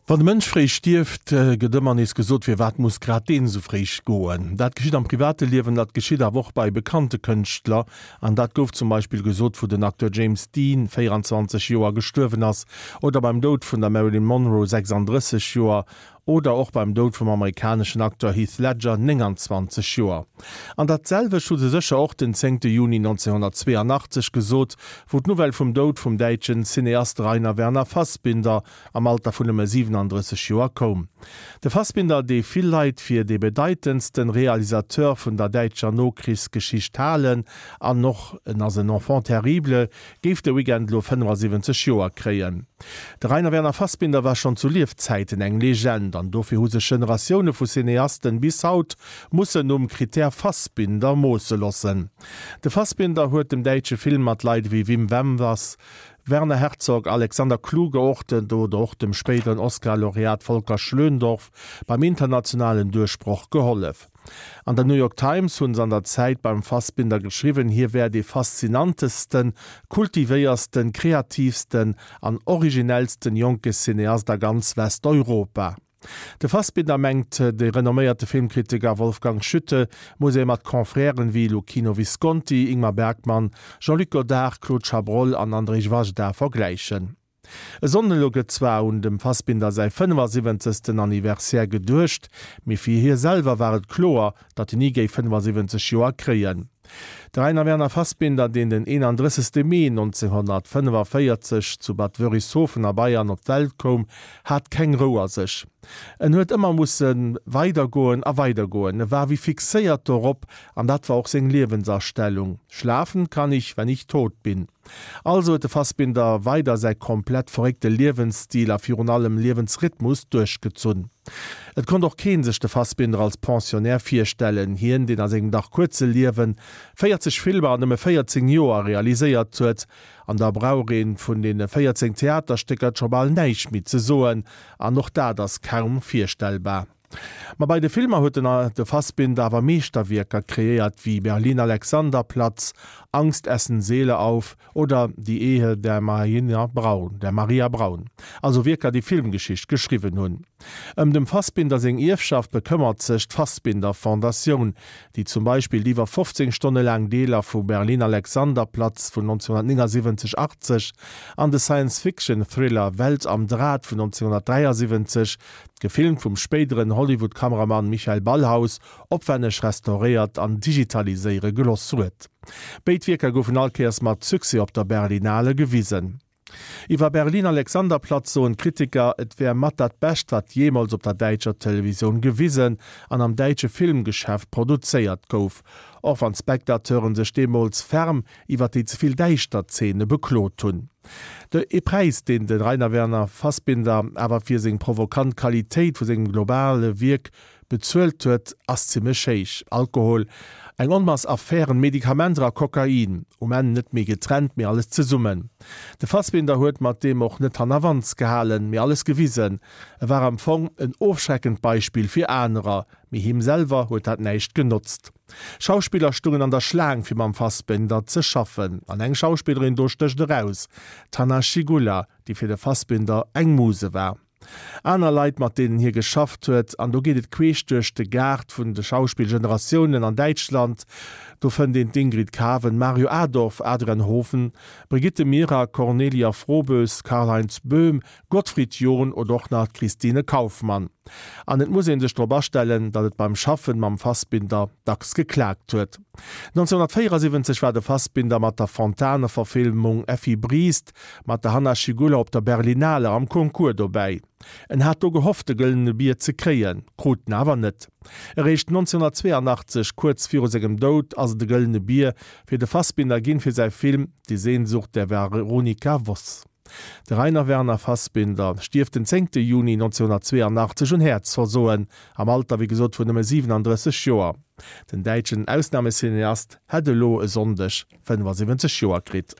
Wann e Mënsch fréi stierft, gëtt ëmmer nees gesot, Firwat muss grad deen esou fréi goen? Dat geschitt am private Liewen, dat geschitt awer och bei bekannte Kënschtler. An dat gouf zum Beispill gesot, wou den Acteur James Dean, 24 Joer, gestuerwen ass, oder beim Doud vun der Marilyn Monroe, 36 Joer, Oder och beim Doud vum amerikaneschen Acteur Heath Ledger, 29 Joer. An dat selwecht hu se sécher och den zéngte Juni 1982 gesot, wou d'Nouvelle vum Doud vum däitschen Cineast Rainer Werner Fassbinder am Alter vun nëmme 37 Joer koum. De Fassbinder, dee vill Leit fir dee bedeitendsten Realisateur vun der däitscher Nokrichsgeschicht halen, an och en ass en Enfant terrible, géif de Weekend elo 75 Joer kréien. De Rainer Werner Fassbinder war schonn zu Liefzäiten eng Legend an dofir hu sech Generatioune vu Cineasten bis haut mussen um Critère Fassbinder moosse lossen. De Fassbinder huet dem däitsche Film mat Leit ewéi Wim Wenders, Werner Herzog, Alexander Kluge oder och dem spéideren Oscar-Laureat Volker Schlöndorff beim internationalen Duerchbroch gehollef. An der New York Times hunn se an der Zäit beim Fassbinder geschriwwen, hie wär dee faszinantesten, kultivéiersten, kreativsten an originellsten jonke Cineast a ganz Westeuropa. De Fassbinder, mengt de renomméierte Filmkritiker Wolfgang Schütte, muss ee mat Confrèren wéi Luchino Visconti, Ingmar Bergman, Jean-Luc Godard, Claude Chabrol an Andrzej Wajda vergläichen. E Sonnden elo gëtt zwar un dem Fassbinder säi 75. Anniversaire geduecht, mee fir hie selwer war et kloer, datt en ni géif 75 Joer kréien. De Rainer Werner Fassbinder, deen den 31. Mee 1945 zu Bad Wörishofen a Bayern op d'Welt koum, hat keng Rou a sech. En huet ëmmer musse weidergoen a weidergoen. E war wéi fixéiert dorop an dat war och seng Liewensastellung, Schlafen kann ich, wenn ich tot bin. Also huet de Fassbinder weider säi komplett verréckte Liewensstil a virun allem Liewensrhythmus duerchgezunn. Et konnt och keen sech de Fassbinder als Pensionnaire virstellen, hien deen a sengem dach kuerze Liewen 40 Filmer an nëmme 14 Joer realiséiert huet. An da brauch een vun deene 14 Theaterstécker scho bal näischt méi ze soen, an och dat ass kaum virstellbar. Ma bei de Filmer huet den de Fassbinder awer Meeschterwierker kreéiert wéi Berlin Alexanderplatz, Angst essen Seele auf oder Die Ehe der Marina Braun, der Maria Braun. Also Wierker déi Filmgeschicht geschriwwen hunn. Ëm dem Fassbinder seng Ierfschaft bekëmmert sech d'Fassbinder Fondatioun, déi zum Beispill déi iwwer 15 Stonne laang Deeler vu Berlin Alexanderplatz vun 1979, 80 an de Science-Fiction-Thriller Welt am Draht vun 1973 Gefilmt vum spéideren Hollywood-Kameramann Michael Ballhaus, opwänneg restauréiert an digitaliséiere geloss huet. Béid Wierker goufen all Kéiers mat Succès op der Berlinale gewisen. Iwwer Berlin Alexanderplatz soen d'Kritiker, et wär mat dat Bescht, wat jeemools op der däitscher Televisioun gewisen an am däitsche Filmgeschäft produzéiert gouf, och wann d'Spectateuren sech deemools ferm iwwer déi ze vill däischter Zeene beklot hunn. De ee Präis, deen de Rainer Werner Fassbinder awer fir seng provokant Qualitéit vu sengem globale Wierk bezuelt huet, ass zimmlech héich, Alkohol, eng Onmass Affären, Medikamenter a Kokain. Um Enn net méi getrennt, mee alles zesummen. De Fassbinder huet mat deem och net hannerwands gehalen, mee alles gewisen. E war am Fong en ofschreckend Beispill fir anerer, mee him selwer huet dat näischt genotzt. Schauspiller stungen an der Schlaang fir mam Fassbinder ze schaffen. An eng Schauspillerin do stécht eraus, d'Hanna Schygulla, déi fir de Fassbinder eng Muse war. Aner Leit, mat deenen hie geschafft huet, an do geet et queesch duerch de Gaart vun de Schauspillgeneratiounen an Däitschland, do fënnt een d'Ingrid Caven, Mario Adorf, Adrian Hoven, Brigitte Mira, Cornelia Froboess, Karlheinz Böhm, Gottfried John oder och nach d'Christine Kaufmann. An et muss ee sech drop astellen, datt et beim Schaffen mam Fassbinder dacks geklaakt huet. 1974 war de Fassbinder mat der Fontane-Verfilmung Effi Briest mat der Hanna Schygulla op der Berlinale am Concours dobäi. En hat do gehofft de Gëllene Bier ze kréien, krut en awer net. Eréischt 1982, kuerz viru sengem Doud, ass et e Gëllene Bier fir de Fassbinder ginn fir säi Film Die Sehnsucht der Veronika Voss. De Rainer Werner Fassbinder stierft den zéngte Juni 1982 un Häerzversoen, am Alter wéi gesot vun nëmme 37 Joer. Den däitschen Ausnamecineast hätt elo e Sonndeg 75 Joer kritt.